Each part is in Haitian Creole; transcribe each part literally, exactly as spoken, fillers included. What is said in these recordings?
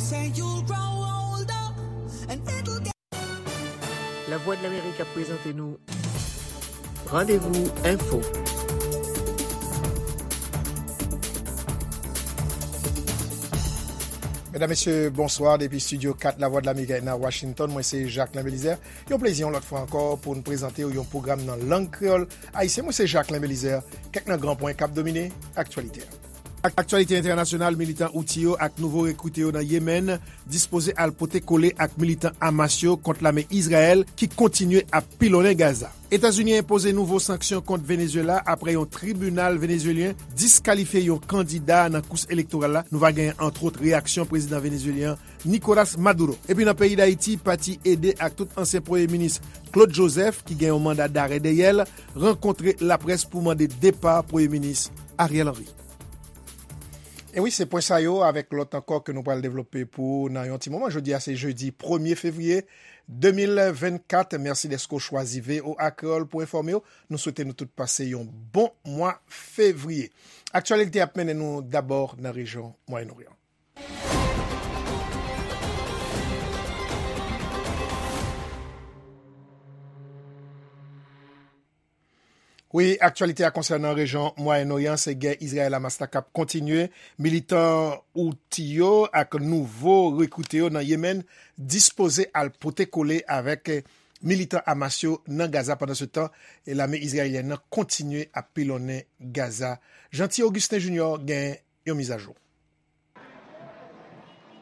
Say you'll grow older and it'll get Lavwadlamerik ap prezante nou Randevou Enfo. Medam, mesye, bonswa. Depi Estidyo kat Lavwadlamerik nan Washington, mwen se Jacquelin Belizaire. Yon plezi yon lòt fwa ankò pou n prezante w yon pwogram nan lang kreyòl ayisyen. Mwen se Jacquelin Belizaire. Kèk nan gran pwen k ap domine aktyalite a. Ak-, aktyalite entènasyonal, militan Houthi yo ak nouvo rekrite yo nan Yemen dispoze al pote kole ak militan Hamas yo kont lame Izrayèl ki kontinye ap pilonnen Gaza. Etazini enpoze nouvo sanksyon kont Venezuela apre yon tribinal venezuelyen diskalifye yon kandida nan kous elektoral la. Nou va genyen, antwòt, reyaksyon prezidan venezuelyen Nicolas Maduro. Epi nan peyi Dayiti, pati EDE ak tout ansyen premye minis Claude Joseph, ki gen yon manda darè dèyè l, rankontre laprès pou mande depa premye minis Ariel Henry. E wi, se pwen sa yo avèk lòt ankò ke nou pral devlope pou ou nan yon ti moman. Jodi a se jedi premye fevriye de mil vennkat. Mèsi dèske w chwazi V O A Kreyòl pou enfòme w. Nou swete nou tout pase yon bon mwa fevriye. Aktyalite ap mennen nou dabò nan rejyon Mwayen Oryan. Wi, aktyalite a konsènan rejyon Mwayen Oryan, se gè Izrayèl-Hamas la k ap kontinye. Militan Houthi yo ak nouvo rekrite yo nan Yemen dispoze al pote kole avèk militan Hamas yo nan Gaza. Pandansetan, lame izrayelyèn nan kontinye ap pilonnen Gaza. Jeanty Augustin Junior gen yon mizajou.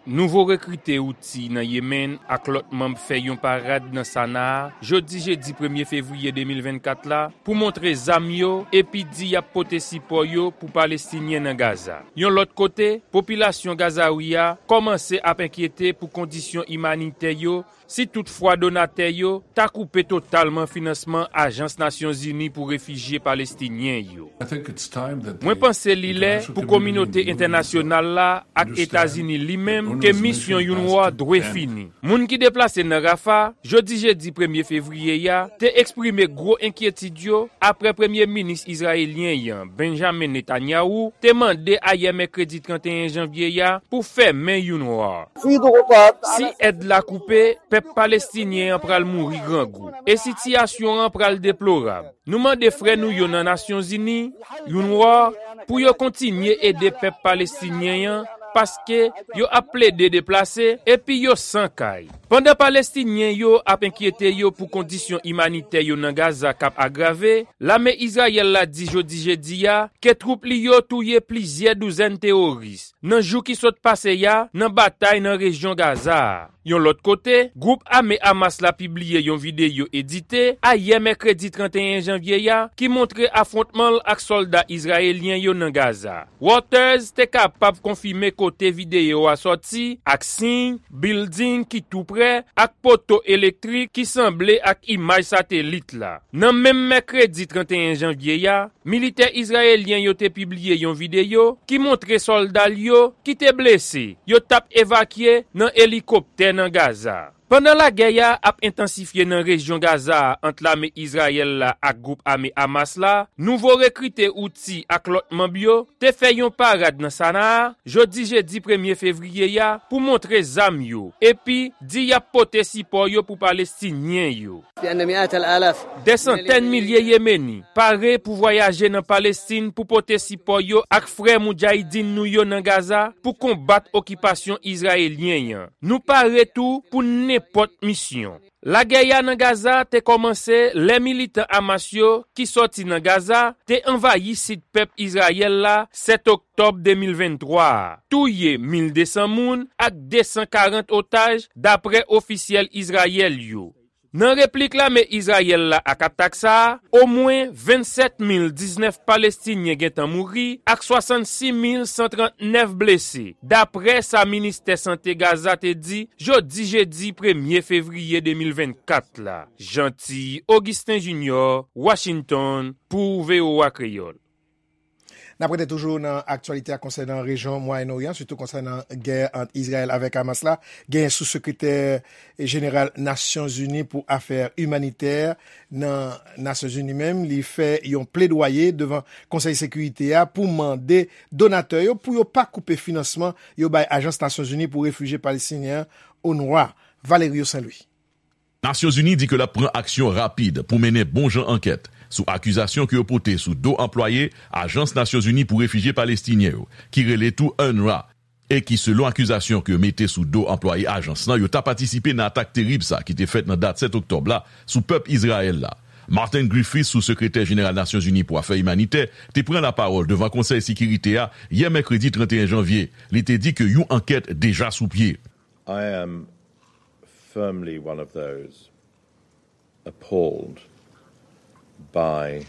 Nouvo rekrite Houthi nan Yemen ak lòt manm fè yon parad nan Sanaa jodi jedi premye fevriye de mil vennkat la pou montre zam yo epi di y ap pote sipò yo pou Palestinyen nan Gaza. Yon lòt kote, popilasyon Gazawi a kòmanse ap enkyete pou kondisyon imanitè yo si toutfwa donatè yo ta koupe totalman finansman Ajans Nasyonzini pou Refijye Palestinyen yo. Mwen panse li lè pou kominote entènasyonal la ak Etazini li menm ke misyon UNRWA dwe fini. Moun ki deplase nan Rafah, jodi jedi premye fevriye a, te eksprime gwo enkyetid yo apre premye minis izrayelyen an, Benjamin Netanyahu, te mande ayè mèkredi trannteyen janvye a pou fèmen UNRWA. Si èd la koupe, pèp palestinyen an pral mouri grangou, e sitiyasyon an pral deplorab. Nou mande frè nou yo nan Nasyonzini, UNRWA, pou yo kontinye ede pèp palestinyen an, paske yo ap plede deplase epi yo san kay. Pandan Palestinyen yo ap enkyete yo pou kondisyon imanitè yo nan Gaza k ap agrave, lame Izrayèl la di jodi jedi a ke twoup li yo touye plizyè douzèn teworis nan jou ki sot pase a nan batay nan rejyon Gaza a. Yon lòt kote, gwoup ame Hamas la pibliye yon videyo edite ayè mèkredi trannteyen janvye a ki montre afwontman l ak sòlda izrayelyen yo nan Gaza. Reuters te kapab konfime kote videyo a sòti ak siy, bilding ki tou prè, ak poto elektrik ki sanble ak imaj satelit la. Nan menm mèkredi trannteyen janvye a, militè izrayelyen yo te pibliye yon videyo ki montre sòlda l yo ki te blese, yo t ap evakye nan elikoptè nan Gaza. Pandan lagè a ap entansifye nan rejyon Gaza a ant lame Izrayèl la ak gwoup ame Hamas la, nouvo rekrite Houthi ak lòt manm yo te fè yon parad nan Sanaa jodi jedi premye fevriye a pou montre zam yo, epi di y ap pote sipò yo pou Palestinyen yo. Dè santèn milye Yemeni pare pou vwayaje nan Palestin pou pote sipò yo ak frè Moudjahidin nou yo nan Gaza pou konbat okipasyon izrayelyen an. Nou pare tou pou nenpòt misyon. Lagè a nan Gaza te kòmanse lè militan Hamas yo ki sòti nan Gaza te anvayi sid pèp Izrayèl la sèt oktòb de mil venntwa a, touye mil de san moun ak de san karant otaj, dapre ofisyèl Izrayèl yo. Nan replik lame Izrayèl la ak atak sa a, omwen vennsèt mil diznèf Palestinyen gentan mouri ak swasannsis mil san trannèf blese, dapre sa ministè sante Gaza te di jodi jedi premye fevriye de mil vennkat la. Jeanty Augustin Junior, Washington, pou V O A Kreyòl. N ap rete toujou nan aktyalite a konsènan rejyon Mwayen Oryan, sitou konsènan gè ant Izrayèl avèk Hamas la. Gen sou sekretè jeneral Nasyonzini pou afè imanitè nan Nasyonzini menm, li fè yon pledwaye devan Konsèy Sekirite a pou mande donatè yo pou yo pa koupe finansman yo bay Ajans Nasyonzini pou Refijye Palestinyen an, onrwa, Valerio Saint Louis. Nasyonzini di ke l ap pran aksyon rapid pou mennen bon jan ankèt sou akizasyon ke yo pote sou do anplwaye Ajans Nasyonzini pou Refijye Palestinyen yo, ki rele tou UNRWA, e ki, selon akizasyon ke yo mete sou do anplwaye ajans lan, yo ta patisipe nan atak terib sa ki te fèt nan dat sèt oktòb la sou pèp Izrayèl la. Martin Griffiths, sou sekretè jeneral Nasyonzini pou afè imanitè, te pran lapawòl devan Konsèy Sekirite a yè mèkredi trannteyen janvye. Li te di ke yon ankèt deja sou pye. I am firmly one of those appalled by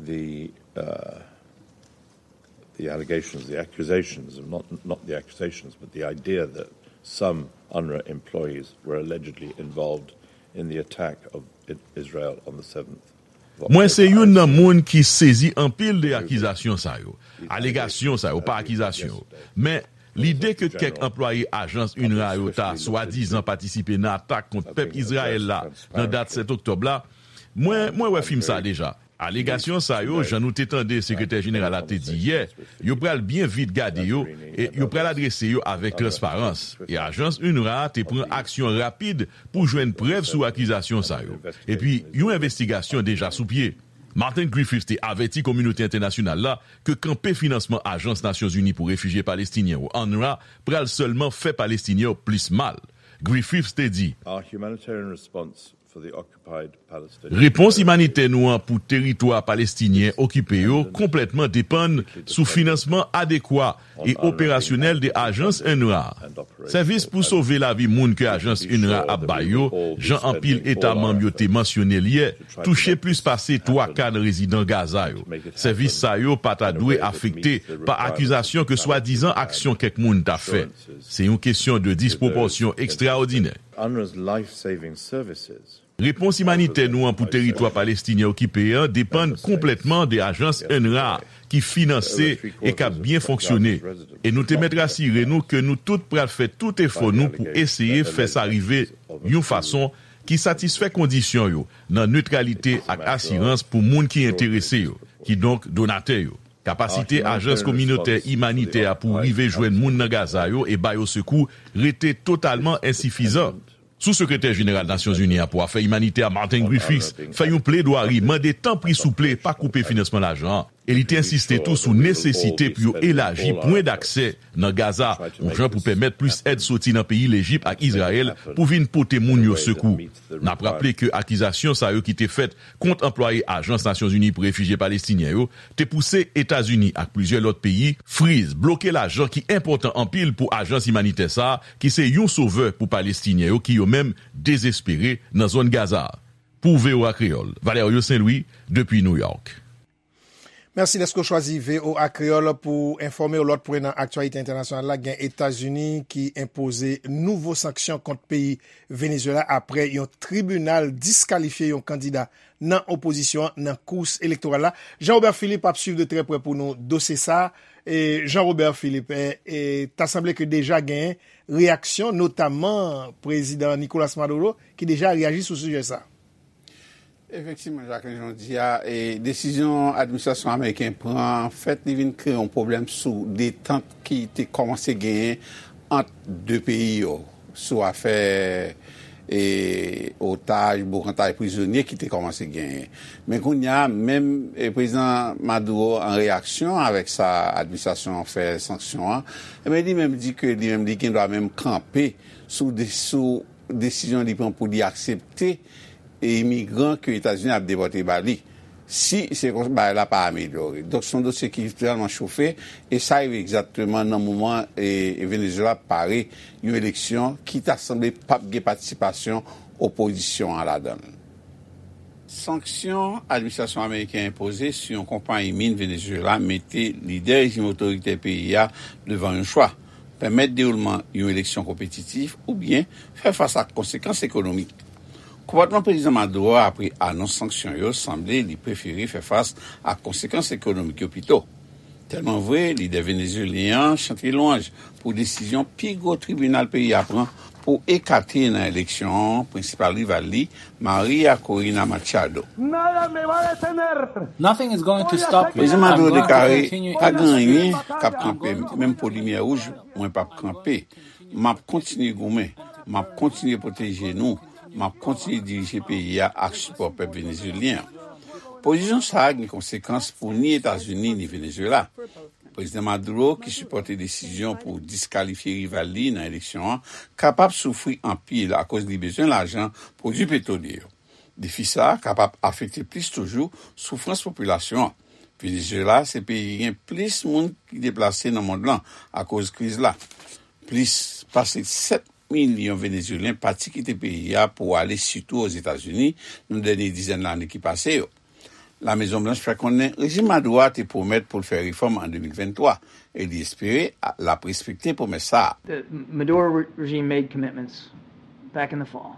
the uh, the allegations, the accusations, not not the accusations, but the idea that some UNRWA employees were allegedly involved in the attack of I- Israel on the seventh. Mwen se youn nan moun ki sezi anpil de akizasyon sa yo. Alegasyon sa yo, pa akizasyon yo. Men, lide ke kèk anplwaye ajans UNRWA yo ta swadizan patisipe nan atak kont pèp Izrayèl la nan dat sèt oktòb la, mwen, mwen wè fim sa deja. Alegasyon sa yo, jan nou te tande sekretè jeneral la te di yè, yo pral byen vit gade yo e yo pral adrese yo avèk transparans. E ajans UNRWA te pran aksyon rapid pou jwenn prèv sou akizasyon sa yo. Epi, yon envestigasyon deja sou pye. Martin Griffiths te avèti kominote entènasyonal la ke kanpe finansman Ajans Nasyonzini pou Refijye Palestinyen yo, UNRWA, pral sèlman fè Palestinyen yo plis mal. Griffiths te di, Our humanitarian response for the occupied Palestinian Repons imanitè nou an pou teritwa palestinyen okipe yo konplètman depann sou finansman adekwa e operasyonèl de ajans UNRWA. Sèvis pou sove lavi moun ke ajans UNRWA ap bay yo, jan anpil eta manm yo te mansyone l yè, touche plis pase twa ka nan rezidan Gaza yo. Sèvis sa yo pa ta dwe afekte pa akizasyon ke swadizan aksyon kèk moun ta fè. Se yon kesyon de dispwopòsyon ekstraòdinè. UNRWA's life-saving services Repons imanitè nou an pou teritwa palestinyen okipe an depann konplètman de ajans UNRWA ki finanse e k ap byen fonksyone. E nou te mèt rasire nou ke nou tout pral fè tout efò nou pou eseye fè sa rive yon fason ki satisfè kondisyon yo nan netralite ak asirans pou moun ki enterese yo, kidonk donatè yo. Kapasite ajans kominotè imanitè a pou rive jwenn moun nan Gaza yo e ba yo sekou rete totalman ensifizan. Sou sekretè jeneral Nasyonzini an pou afè imanitè a, Martin Griffiths, fè yon pledwari, mande tanpri souple pa koupe finansman lajan an. E li te ensiste tou sou nesesite pou yo elaji pwen daksè nan Gaza, yon jan pou pèmèt plis èd soti nan peyi Lejip ak Izrayèl pou vin pote moun yo sekou. N ap raple ke akizasyon sa yo ki te fèt kont anplwaye Ajans Nasyonzini pou Refijye Palestinyen yo te pouse Etazini ak plizyè lòt peyi friz, bloke lajan ki enpòtan anpil pou ajans imanitè sa a, ki se yon sovè pou Palestinyen yo ki yo menm dezespere nan zòn Gaza a. Pou V O A Kreyòl, Valerio Saint Louis, depi New York. Mèsi dèske w chwazi V O A Kreyòl pou enfòme w. Lòt pwen nan aktyalite entènasyonal la, gen Etazini ki enpoze nouvo sanksyon kont peyi Venezuela apre yon tribinal diskalifye yon kandida nan opozisyon an nan kous elektoral la. Jean Robert Philippe ap swiv de trè prè pou nou dosye sa a. E Jean Robert Philippe, e, e, ta sanble ke deja gen reyaksyon, notamman prezidan Nicolas Maduro, ki deja reyaji sou sijè sa a. Efektivman, Jacqueline, jan w di a, e, desizyon administrasyon ameriken pran, an fèt, li vin kreye yon pwoblèm sou detant ki te kòmanse genyen ant de peyi yo, sou afè, e, otaj, boukantay prizonye ki te kòmanse genyen. Men kounye a, menm, e, prezidan Maduro, an reyaksyon avèk sa administrasyon an fè sanksyon an, e men li menm di ke li menm, li gen dwa menm kanpe sou de, sou desizyon li pran pou li aksepte e imigran ke Etazini ap depòte ba li, si se konsa bagay la pa amelyore. Donk, se yon dosye ki vrèman chofe, e sa rive egzakteman nan moman e, e Venezuela ap pare yon eleksyon ki ta sanble p ap gen patisipasyon opozisyon an ladan l. Sanksyon administrasyon ameriken enpoze sou yon konpayi min Venezuela mete lidè rejim otoritè peyi a devan yon chwa, pèmèt dewoulman yon eleksyon konpetitif oubyen fè fas ak konsekans ekonomik. Konpòtman prezidan Maduro apre anons sanksyon yo sanble li prefere fè fas ak konsekans ekonomik yo pito. Tèlman vre, lidè venezuelyen an chante lwanj pou desizyon pi gwo tribinal peyi a pran pou ekate nan eleksyon an prensipal rival li, Maria Corina Machado. Nothing is going to stop me. Prezidan Maduro deklare, pa gen anyen k ap kanpe m, menm po limyè wouj, mwen p ap kanpe. M ap kontinye goumen, m ap kontinye pwoteje nou, m ap kontinye dirije peyi a ak sipò pèp venezuelyen an. Pozisyon sa a gen konsekans pou ni Etazini ni Venezuela. Prezidan Maduro, ki sipòte desizyon pou diskalifye rival li nan eleksyon an, kapab soufri anpil akoz li bezwen lajan pwodui petwolye yo. Defi sa a kapab afekte plis toujou soufrans popilasyon an. Venezuela se peyi ki gen plis moun ki deplase nan mond lan akoz kriz la. Plis pase sèt milyon Venezuelyen pati kite peyi a pou ale sitou Ozetazini nan dènye dizèn lane ki pase yo. Lamezon Blanch fè konnen rejim Maduro a te pwomèt pou l fè refòm an de mil venntwa e li espere l ap respekte pwomès sa a. The Maduro regime made commitments back in the fall.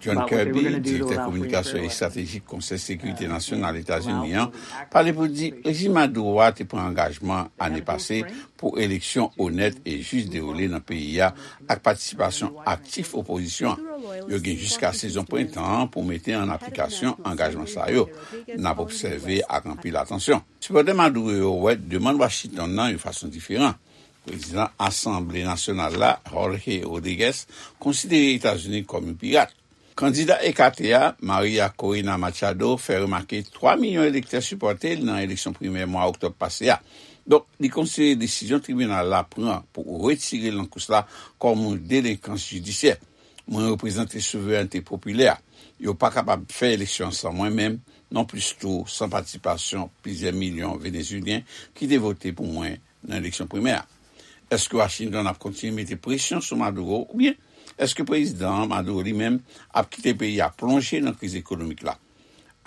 John Kirby, direktè kominikasyon estratejik Konsèy Sekirite Nasyonal Etazini an, pale pou di rejim Maduro a te pran angajman ane pase pou eleksyon onèt e jis dewoule nan peyi a ak patisipasyon aktif opozisyon an. Yo gen jiska sezon prentan an pou mete an aplikasyon angajman sa yo. N ap obsève ak anpil atansyon. Sipòtè Maduro yo wè demann Washington nan yon fason diferan. Prezidan Asanble Nasyonal la, Jorge Rodriguez, konsidere Etazini kòm yon pirat. Kandida ekate a, Maria Corina Machado, fè remake twa milyon elektè sipòte l nan eleksyon primè mwa oktòb pase a. Donk, li konsidere desizyon tribinal la pran pou retire l nan kous la kòm yon delenkans jidisyè. Mwen reprezante souverènte popilè. Yo pa kapab fè eleksyon san mwen menm, non plis tou san patisipasyon plizyè milyon Venezuelyen ki te vote pou mwen nan eleksyon primè a. Èske Washington ap kontinye mete presyon sou Maduro oubyen èske Prezidan Maduro li menm ap kite peyi a plonje nan kriz ekonomik la?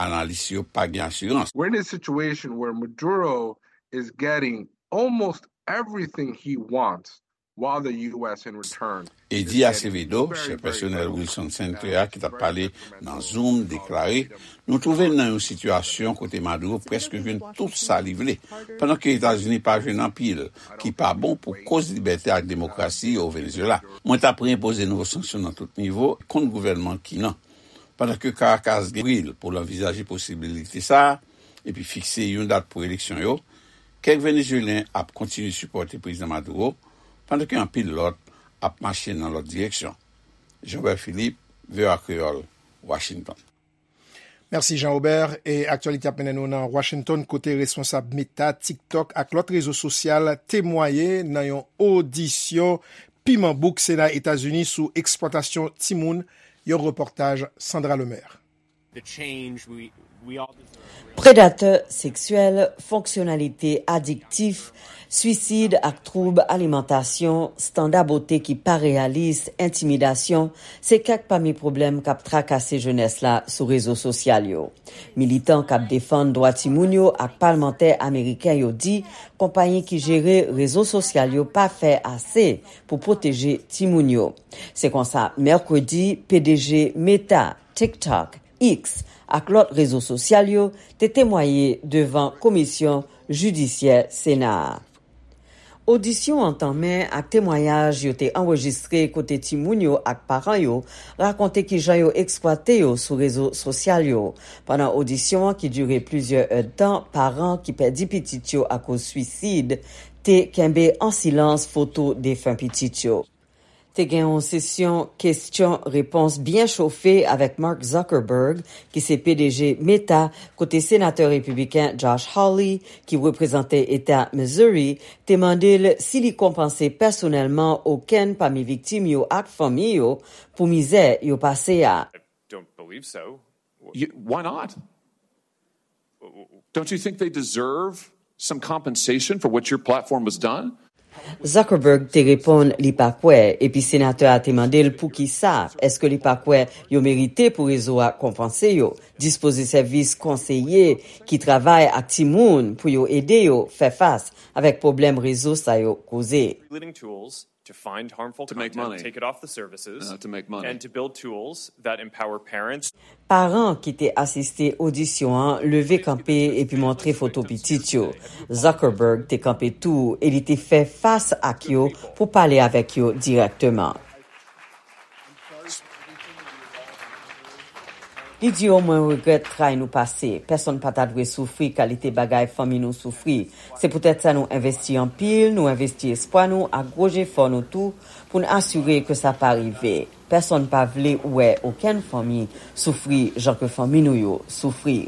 Analis yo pa gen asirans. We're in a situation where Maduro is getting almost everything he wants while the U S in return. Eddie Acevedo, chèf pèsonèl Wilson Center a ki t ap pale nan Zoom, deklare, nou twouve n nan yon sitiyasyon kote Maduro prèske jwenn tout sa li vle, pandan ke Etazini pa jwenn anpil, ki pa bon pou koz libète ak demokrasi o Venezuela. Mwen t ap reinpoze nouvo sanksyon nan tout nivo kont gouvènman ki nan. Pandan ke Caracas gen bril pou l anvizaje posibilite sa a, epi fikse yon dat pou eleksyon yo, kèk Venezuelyen ap kontinye sipòte Prezidan Maduro, pandan ke anpil lòt ap mache nan lòt direksyon. Jean Robert Philippe, V O A Kreyòl, Washington. Mèsi Jean Robert. E aktyalite ap mennen nou nan Washington kote responsab Meta, TikTok ak lòt rezo sosyal temwaye nan yon odisyon piman bouk Sena Etazini sou eksplwatasyon timoun, yon repòtaj Sandra Lemaire. Predatè seksyèl, fonksyonalite adiktif, swisid ak twoub alimantasyon, standa bote ki pa reyalis, entimidasyon, se kèk pami pwoblèm k ap trakase jenès la sou rezo sosyal yo. Militan k ap defann dwa timoun yo ak palmantè ameriken yo di konpayi ki jere rezo sosyal yo pa fè ase pou pwoteje timoun yo. Se konsa, mèkredi, P D G Meta, TikTok, X, ak lòt rezo sosyal yo te temwaye devan komisyon jidisyè Sena a. Odisyon an tanmen ak temwayaj yo te anrejistre kote timoun yo ak paran yo rakonte kijan yo eksplwate yo sou rezo sosyal yo. Pandan odisyon an ki dire plizyè èdtan, paran ki pèdi pitit yo akoz swisid te kenbe an silans foto defen pitit yo. Te gen yon sesyon kesyon-repons byen chofe avèk Mark Zuckerberg, ki se P D G Meta, kote senatè repibliken Josh Hawley, ki reprezante eta Missouri, te mande l si li konpanse pèsonèlman okenn pami viktim yo ak fanmi yo pou mizè yo pase a. Don't believe so. You, why not? Don't you think they deserve some compensation for what your platform has done? Zuckerberg te reponn li pa kwè, epi senatè a te mande l poukisa, èske li pa kwè yo merite pou rezo a konpanse yo? Dispoze sèvis konseye ki travay ak timoun pou yo ede yo fè fas avèk pwoblèm rezo sa yo koze. to find harmful To make content, money. Take it off the services, Uh, to make money. And to build tools that empower parents. Paran ki te asiste odisyon an leve kanpe epi montre foto pitit yo. Zuckerberg te kanpe tou e li te fè fas ak yo pou pale avèk yo dirèkteman. Li di yo, mwen regrèt tray nou pase. Pèsonn pa ta dwe soufri kalite bagay fanmi nou soufri. Se poutèt sa nou envesti anpil, nou envesti espwa nou ak gwo jefò nou tou pou n asire ke sa pa rive. Pèsonn pa vle wè okenn fanmi soufri jan ke fanmi nou yo soufri.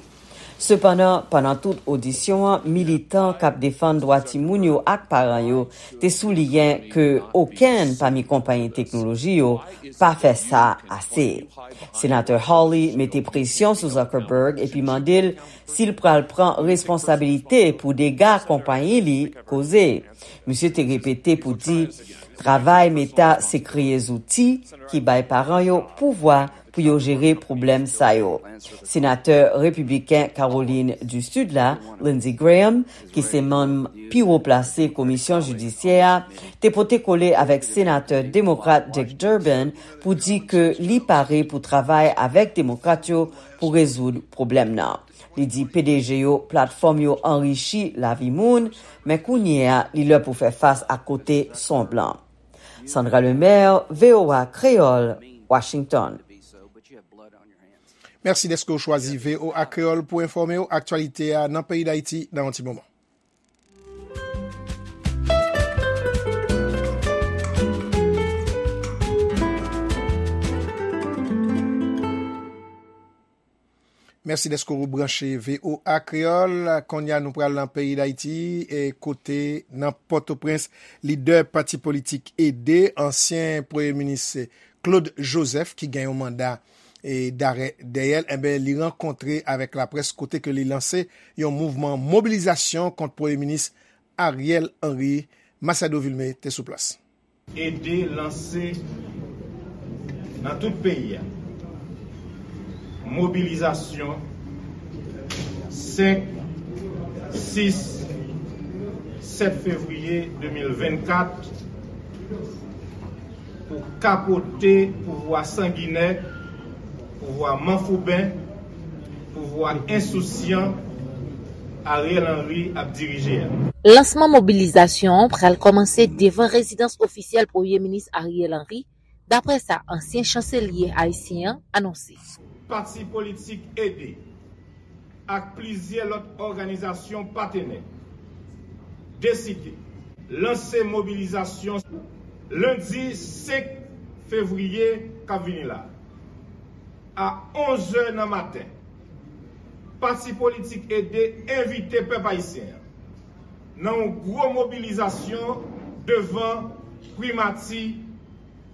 Sepandan, pandan tout odisyon an, militan k ap defann dwa timoun yo ak paran yo te souliyen ke okenn pami konpayi teknoloji yo pa fè sa ase. Senatè Hawley mete presyon sou Zuckerberg epi mande l si l pral pran responsabilite pou dega konpayi li koze. Misye te repete pou di travay Meta se kreye zouti ki bay paran yo pouvwa pou yo jere pwoblèm sa yo. Senatè repibliken Kawolin di Sid la, Lindsey Graham, ki se manm pi wo plase komisyon jidisyè a, te pote kole avèk senatè demokrat Dick Durbin pou di ke li pare pou travay avèk demokrat yo pou rezoud pwoblèm nan. Li di P D G yo, platfòm yo anrichi lavi moun, men kounye a, li lè pou fè fas ak kote son blan. Sandra Lemaire, V O A Kreyòl, Washington. Mèsi dèske w chwazi V O A Kreyòl pou enfòme w aktyalite a nan peyi Dayiti nan yon ti moman. Mèsi dèske w branche V O A Kreyòl. Kounye a, nou pral nan peyi Dayiti, e kote nan Pòtoprens, lidè pati politik Ede, ansyen premye minis Claude Joseph, ki gen yon manda e darè dèyè l, enben, li rankontre avèk laprès kote ke li lanse yon mouvman mobilizasyon kont premye minis Ariel Henry. Masiado Vilmé te sou plas. Ede lanse nan tout peyi a mobilizasyon senk, sis, sèt fevriye de mil vennkat pou kapote pouvwa sanginè, pouvwa manfouben, pouvwa ensousyan Ariel Henry ap dirije a. Lansman mobilizasyon an pral kòmanse devan rezidans ofisyèl Premye Minis Ariel Henry, daprè sa ansyen chanselye ayisyen an anonse. Pati politik Ede ak plizyè lòt òganizasyon patenè deside lanse mobilizasyon lendi senk fevriye k ap vini la a onz è nan maten. Pati politik Ede envite pèp ayisyen an nan yon gwo mobilizasyon devan primati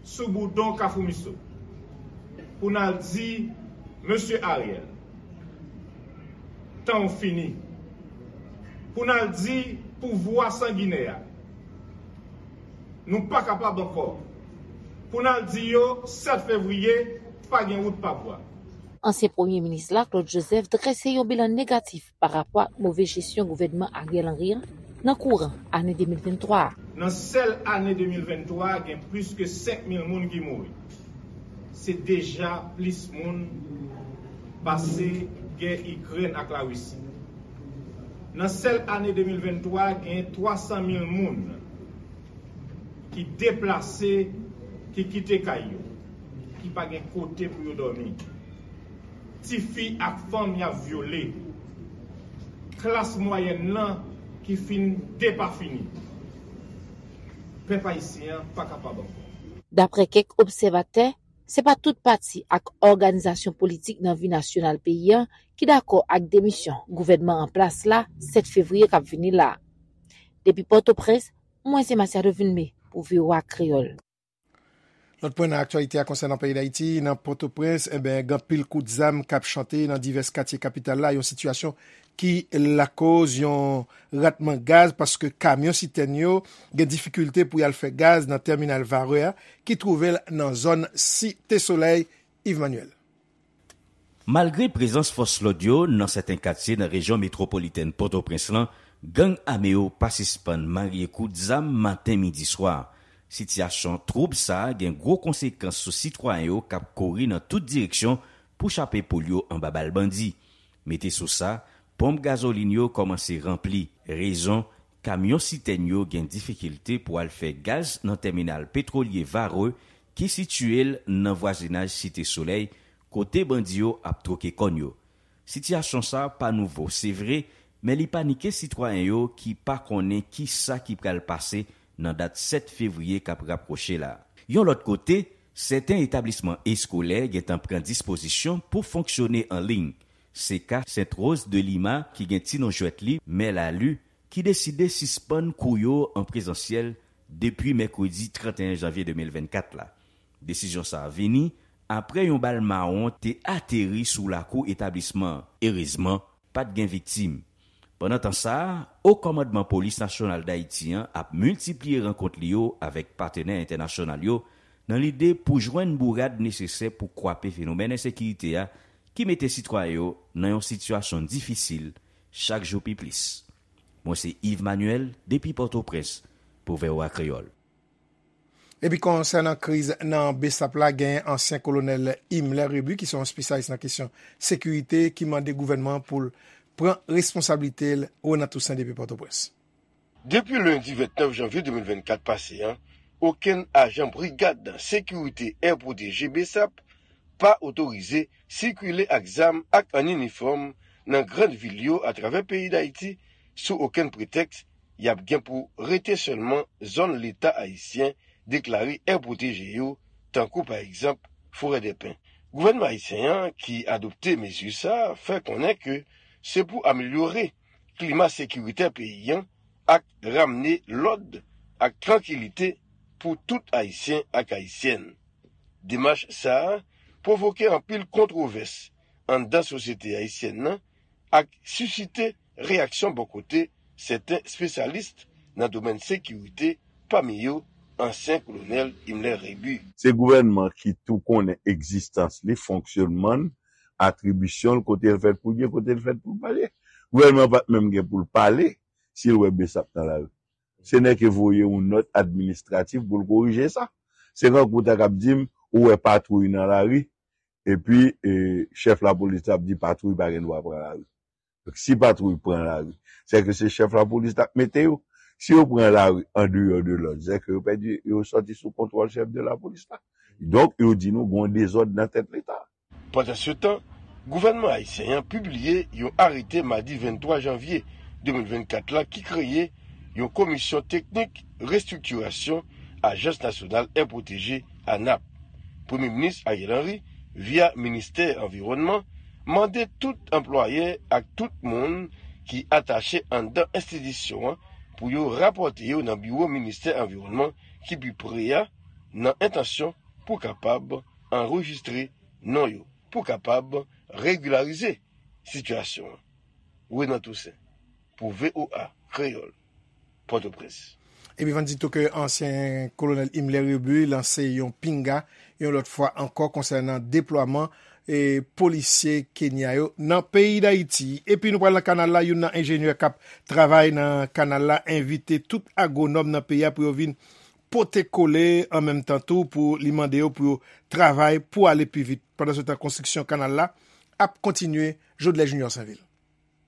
sou boudon Kafou Miso pou n al di Mesye Ariel, tan w fini. Pou n al di pouvwa sanginè a, nou pa kapab ankò. Pou n al di yo sèt fevriye, pa gen wout pa bwa. Ansyen premye minis la, Claude Joseph, drese yon bilan negatif pa rapò ak move jesyon gouvènman Ariel Henry an nan kouran ane de mil venntwa a. Nan sèl ane de mil venntwa a, gen plis ke senk mil moun ki mouri. Se deja plis moun pase gè Ikrèn ak Larisi. Nan sèl ane de mil venntwa a, gen twa san mil moun ki deplase, ki kite kay yo, ki pa gen kote pou yo dòmi. Tifi ak fanm y ap vyole. Klas mwayèn nan ki fin depafini. Pèp ayisyen an pa kapab ankò. Daprè kèk obsèvatè, se pa tout pati ak òganizasyon politik nan vi nasyonal peyi a ki dakò ak demisyon gouvènman an plas la sèt fevriye k ap vini la. Depi Pòtoprens, mwen se Masiado Vilmé pou V O A Kreyòl. Lòt pwen nan aktyalite a konsènan peyi Dayiti, nan Pòtoprens, enben, gen anpil kout zam k ap chante nan divès katye kapital la, yon sitiyasyon ki lakoz yon ratman gaz paske kamyon sitèn yo gen difikilte pou y al fè gaz nan tèminal Varreux a ki twouve l nan zòn Site Solèy. Yves Manuel. Malgre prezans fòs lòd yo nan sèten katye nan rejyon metwopolitèn Pòtoprens lan, gang ame yo pa sispann marye kout zam maten, midi, swa. Sitiyasyon twoub sa a gen gwo konsekans sou sitwayen yo k ap kouri nan tout direksyon pou chape poul yo anba bal bandi. Mete sou sa, ponp gazolin yo kòmanse ranpli. Rezon, kamyon sitèn yo gen difikilte pou al fè gaz nan tèminal petwolye Varreux ki sitiye l nan vwazinaj Site Solèy, kote bandi yo ap twoke kòn yo. Sitiyasyon sa a pa nouvo, se vre, men li panike sitwayen yo ki pa konnen ki sa ki pral pase nan dat sèt fevriye k ap rapwoche la. Yon lòt kote, sèten etablisman eskolè gentan pran dispozisyon pou fonksyone an liy. Se ka Sent Woz de Lima ki gen ti non jwèt li, Mè Lalu, ki deside sispann kou yo an prezansyèl depi mèkredi trannteyen janvye de mil vennkat la. Desizyon sa a vini apre yon bal mawon te ateri sou lakou etablisman an. Erezman, pa t gen viktim. Pandan tan sa a, O Kòmandman Polis Nasyonal Dayiti an ap miltipliye rankont li yo avèk patnè entènasyonal yo nan lide pou jwenn bourad nesesè pou kwape fenomèn ensekirite a ki mete sitwayen yo nan yon sitiyasyon difisil chak jou pi plis. Mwen se Yves Manuel depi Pòtoprens pou V O A Kreyòl. Epi konsènan kriz nan Besap la, genyen ansyen kolonèl Himmler Rebu ki se yon espesyalis nan kesyon sekirite ki mande gouvènman an pou l pran responsablite l. Renan Toussaint depi Pòtoprens. Depi lendi vennèf janvye de mil vennkat pase an, okenn ajan brigad sekirite Air Protégé Besap pa otorize sikile ak zam ak an inifòm nan grann vil yo atravè peyi Dayiti sou okenn pretèks y ap gen pou rete sèlman zòn Leta ayisyen deklare Air Protégé yo, tankou pa egzanp Forèdèpen. Gouvènman ayisyen an ki adopte mezi sa a fè konnen ke se pou amelyore klima sekiritè peyi an ak ramne lòd ak trankilite pou tout Ayisyen ak Ayisyèn. Demach sa a pwovoke anpil kontwovès anndan sosyete ayisyèn nan ak sisite reyaksyon bò kote sèten espesyalis nan domèn sekirite, pami yo ansyen kolonèl Himmler Rebu. Se gouvènman ki tou konnen egzistans li, fonksyònman l, atribisyon l, kote l fèt pou l ye, kote l fèt pou l pa ye. Gouvènman an pa t menm gen pou l pale si l wè Besap nan lari. Se nèke voye yon nòt administratif pou l korije sa. Se kankou w ta kab di m ou wè patwouy nan lari, epi chèf lapolis la ap di patwouy pa gen dwa pran lari. Donk si patwouy pran lari, sèke se chèf lapolis la k mete yo. Si yo pran lari andeyò de lòd, sèke yo pèdi, yo sòti sou kontwòl chèf de lapolis la. Donk yo di nou gen yon dezòd nan tèt Leta. Pandansetan, gouvènman ayisyen an pibliye yon arete madi venntwa janvye de mil vennkat la ki kreye yon komisyon teknik restriktirasyon Ajans Nasyonal Air Protégé, ANAP. Premye Minis Ariel Henry, via Ministè Anviwònman, mande tout anplwayè ak tout moun ki atache anndan enstitisyon an pou yo rapòte yo nan biwo Ministè Anviwònman ki pi pre a nan entansyon pou kapab anrejistre non yo pou kapab regilarize sitiyasyon an. Renan Toussaint pou V O A Kreyòl, Pòtoprens. Epi van di tou ke ansyen kolonèl Himmler Rebu lanse yon pinga yon lòt fwa ankò konsènan deplwaman e polisye Kenya yo nan peyi Dayiti. Epi nou pral nan kanal la, youn nan enjenyè k ap travay nan kanal la envite tout agwonòm nan peyi a pou yo vin pote kole an menm tan tou pou li mande yo pou yo travay pou ale pi vit. Pandansetan konstriksyon kanal la ap kontinye. Jodlè Junior Sainvil.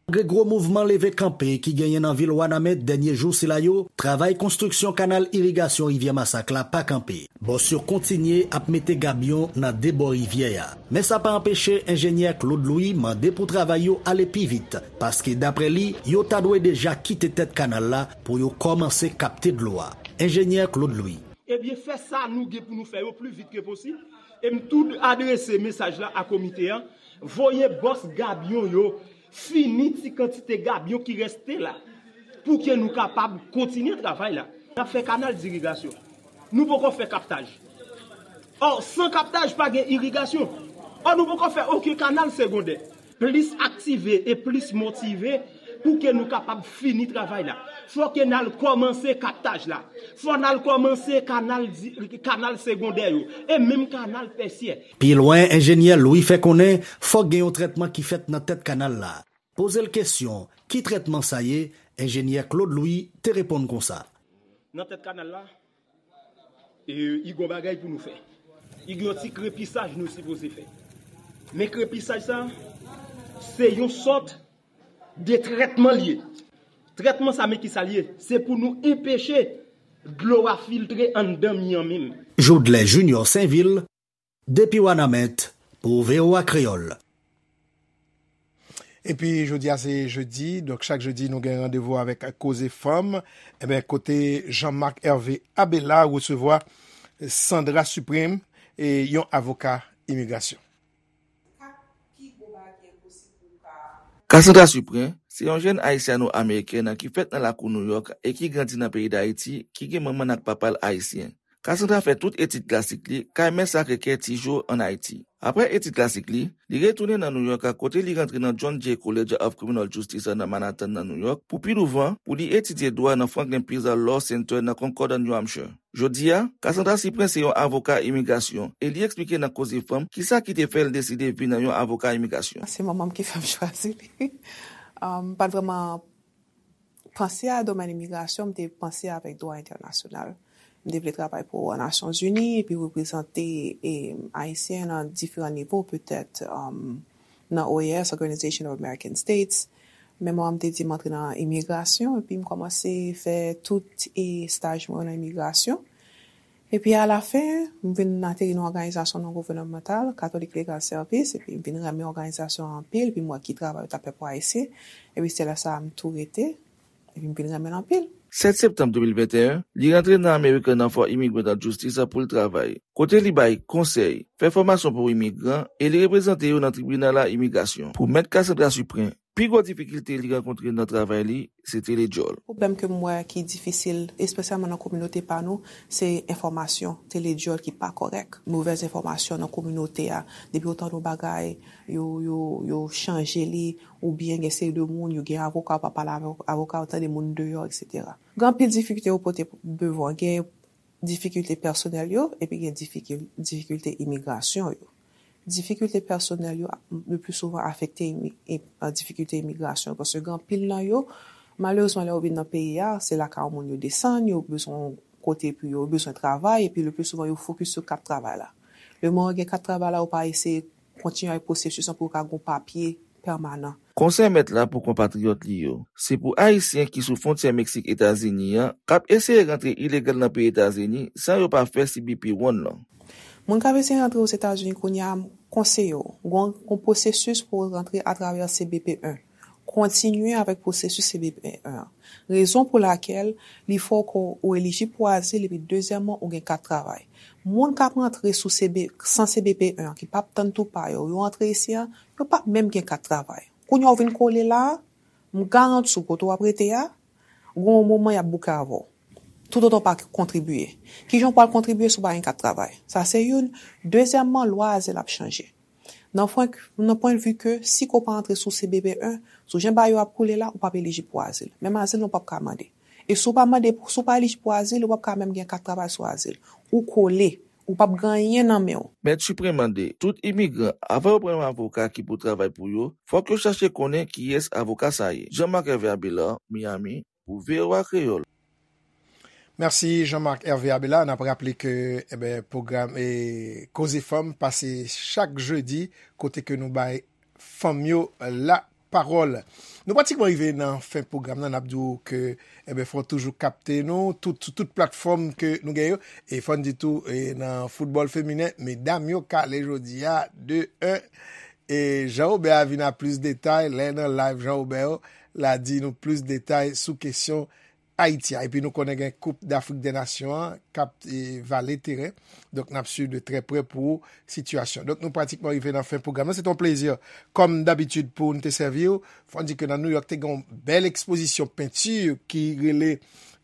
Malgre gwo mouvman leve kanpe ki genyen nan vil Wanament dènye jou sila yo, travay konstriksyon kanal irigasyon Rivyè Masak la pa kanpe. Bòs yo kontinye ap mete gabyon nan de bò rivyè a. Men sa pa anpeche enjenyè Claude Louis mande pou travay yo ale pi vit, paske daprè li, yo ta dwe deja kite tèt kanal la pou yo kòmanse kapte dlo a. Enjenyè Claude Louis. Ebyen, fè sa nou gen pou nou fè yo pli vit ke posib. E m tou adrese mesaj la a komite an, voye bòs gabyon yo, fini ti kantite gabyon ki reste la, pou ke nou kapab kontinye travay la. N ap fè kanal dirigasyon. Nou poko fè kaptaj. Ò, san kaptaj, pa gen irigasyon. Ò, nou poko fè okenn kanal segondè. Plis aktive e plis motive pou ke nou kapab fini travay la. Fò ke n al kòmanse kaptaj la. Fò n al kòmanse kanal, kanal segondè yo e menm kanal tèsyè. Pi lwen, enjenyè Louis fè konnen fòk gen yon trètman ki fèt nan tèt kanal la. Poze l kesyon, ki trètman sa ye? Enjenyè Claude Louis te reponn konsa. Nan tèt kanal la, E, i gon bagay pou nou fè. I gon ti krepisaj nou sipoze fè. Men krepisaj sa, se yon sòt de trètman l ye. Trètman sa, men ki sa l ye? Se pou nou enpeche dlo a filtre anndan mi an menm. Jodlè Junior Sainvil, depi Wanament, pou V O A Kreyòl. Epi jodi a se jedi, donk chak jedi nou gen randevou avèk Koze Fanm. Enben, kote Jean Marc Hervé Abela resevwa Sandra Suprême, e yon avoka imigrasyon. Cassandra Suprin se yon jèn ayisyano-amerikèn ki fèt nan lakou Nouyòk e ki grandi nan peyi Dayiti, ki gen manman n ak papa l ayisyen. Cassandra fè tout etid klasik li kay Mè Sakre Kè Tijo ann Ayiti. Apre etid klasik li, li retounen nan Nouyòk kote li rantre nan John Jay College of Criminal Justice nan Manhattan nan Nouyòk pou pi douvan pou li etidye dwa nan Franklin Pierce Law Center nan Concord, New Hampshire. Jodi a, Cassandra Suprin se yon avoka imigrasyon e li eksplike nan Koze Fanm kisa ki te fè l deside vin yon avoka imigrasyon. Se manman m ki fè m chwazi li. M pa t vrèman panse a domèn imigrasyon, m te panse avèk dwa entènasyonal. M te vle travay pou Nasyonzini epi reprezante Ayisyen nan diferan nivo, petèt nan O A S, Organization of American States. Men manman m te di m antre nan imigrasyon epi m kòmanse fè tout estaj mwen yo nan imigrasyon. Epi alafen, m vin ateri nan òganizasyon non gouvènmantal, Catholic Legal Service, epi m vin renmen òganizasyon an anpil, epi m wè ki travay yo t ap fè pou Ayisyen, epi se lè sa a m tou rete, epi m vin renmen l anpil. Sèt septanm de mil venteyen, li rantre nan American Law for Immigrant Justice pou l travay, kote li bay konsèy, fè fòmasyon pou imigran e li reprezante yo nan tribinal a imigrasyon. Pou Mèt Cassandra Suprin, pi gwo difikilte li rankontre nan travay li, se te ledjòl. Pwoblèm ke m wè ki difisil, espesyalman nan kominote pa nou, se enfòmasyon, te ledjòl ki pa kòrèk. Movèz enfòmasyon nan kominote a, depi w tande yon bagay, yo, yo, yo chanje li, oubyen gen seri de moun, yo gen avoka, w pa pale avèk avoka, w tande moun deyò, etsetera. Gen anpil difikilte yo pote devan, gen difikilte pèsonèl yo, epi gen difikilte imigrasyon yo. Difikilte pèsonèl yo le pli souvan afekte difikilte imigrasyon, paske gen anpil nan yo, malerezman, lè yo vin nan peyi a, se lakay yon moun yo desann, yo bezwen yon kote pou yo, yo bezwen travay, epi le pli souvan yo fokis sou kat travay la. Lemoman yo gen kat travay la, yo pa eseye kontinye avèk pwosesis lan pou yo ka gen yon papye pèmanan. Konsèy mèt la pou konpatriyòt li yo, se pou Ayisyen ki sou fwontyè Meksik Etazini an k ap eseye rantre ilegal nan peyi Etazini san yo pa fè C B P one lan. Moun k ap eseye rantre Ozetazini kounye a, m konseye w, gen yon pwosesis pou w rantre atravè C B P one. Kontinye avèk pwosesis C B P one an. Rezon pou lakèl li fè w elijib pou azil epi dezyèmman ou gen kat travay. Moun k ap rantre sou CB, san C B P one an ki p ap tann tou pa yo, yo antre isi a, yo p ap menm gen kat travay. Kounye a w vin kole la a, m garanti w kote w ap rete a, gen yon moman y ap bouke avè w. Toutotan w pa kontribiye. Kijan w pral kontribiye si w pa gen kat travay? Sa se youn. Dezyèmman, lwa azil ap chanje. Nan pwen, nan pwennvi ke si ke w pa antre sou C B P one, sou jan bagay yo ap koule la, ou p ap elijib pou azil. Menm azil lan ou p ap ka mande. E si w pa mande, si w pa elijib pou azil, ou p ap ka menm gen kat travay sou azil. Ou kole, ou p ap gen anyen nan men w. Mèt Suprin mande tout imigran, avan yo pran yon avoka ki pou travay pou yo, fòk yo chache konnen kiyès avoka sa ye. Jean Marc Hervé Abelard, Miami, pou V O A Kreyòl. Mèsi Jean Marc Hervé Abela. N ap raple ke enben pwogram e Koze Fanm pase chak jedi kote ke nou bay fanm yo lapawòl. Nou pratikman rive nan fen pwogram nan. N ap di w ke enben fò w toujou kapte nou tout, sou tout platfòm ke nou gen yo. E fò n di tou e nan foutbòl feminen, medam yo kale jodi a de en. E Jean Robert a vin a plis detay lè nan live Jean Robert yo, l a di nou plis detay sou kesyon Ayiti a. Epi nou konnen gen Koup Dafrik dè Nasyon an k ap e, vale teren. Donk n ap swiv de trè prè pou sitiyasyon. Donk nou pratikman rive nan fen pwogram nan. Se te yon plezi kòm dabitid pou n te sèvi w. Fò n di ke nan Nouyòk te gen yon bèl ekspozisyon penti ki rele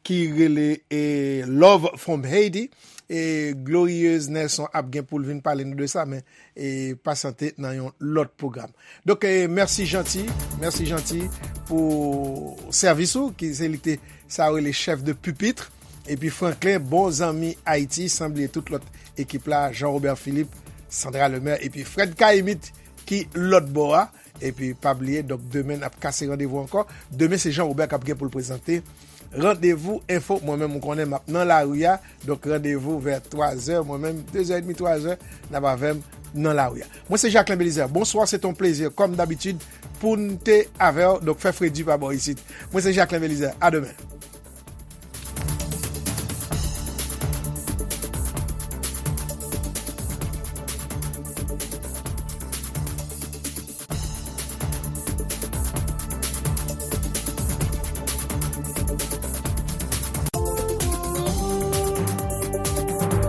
ki rele e, Love from Haiti. E Glorieuse Nelson ap gen pou l vin pale nou de sa, men e, pasyante nan yon lòt pwogram. Donk e, mèsi Janti, mèsi Janti pou sèvis ou, ki se li te sa yo rele chèf de pupitre. Epi Franklin, bon zanmi Ayiti, san bliye tout lòt ekip la, Jean Robert Philippe, Sandra Lemaire, epi Fred Caïmite ki lòt bò a. Epi pa bliye, donk demen n ap kase randevou ankò. Demen se Jean Robert k ap gen pou l prezante Randevou Enfo. Mwen menm, ou konnen m ap nan lari a. Donk, randevou vè twa zè. Mwen menm, de zè edmi, twa zè, n ap avè m nan lari a. Mwen se Jacquelin Belizaire. Bonsoir, c'est un plaisir, comme d'habitude, pou n te avè w. Donk, fè fredi pa bò isit. Mwen se Jacquelin Belizaire. A demen.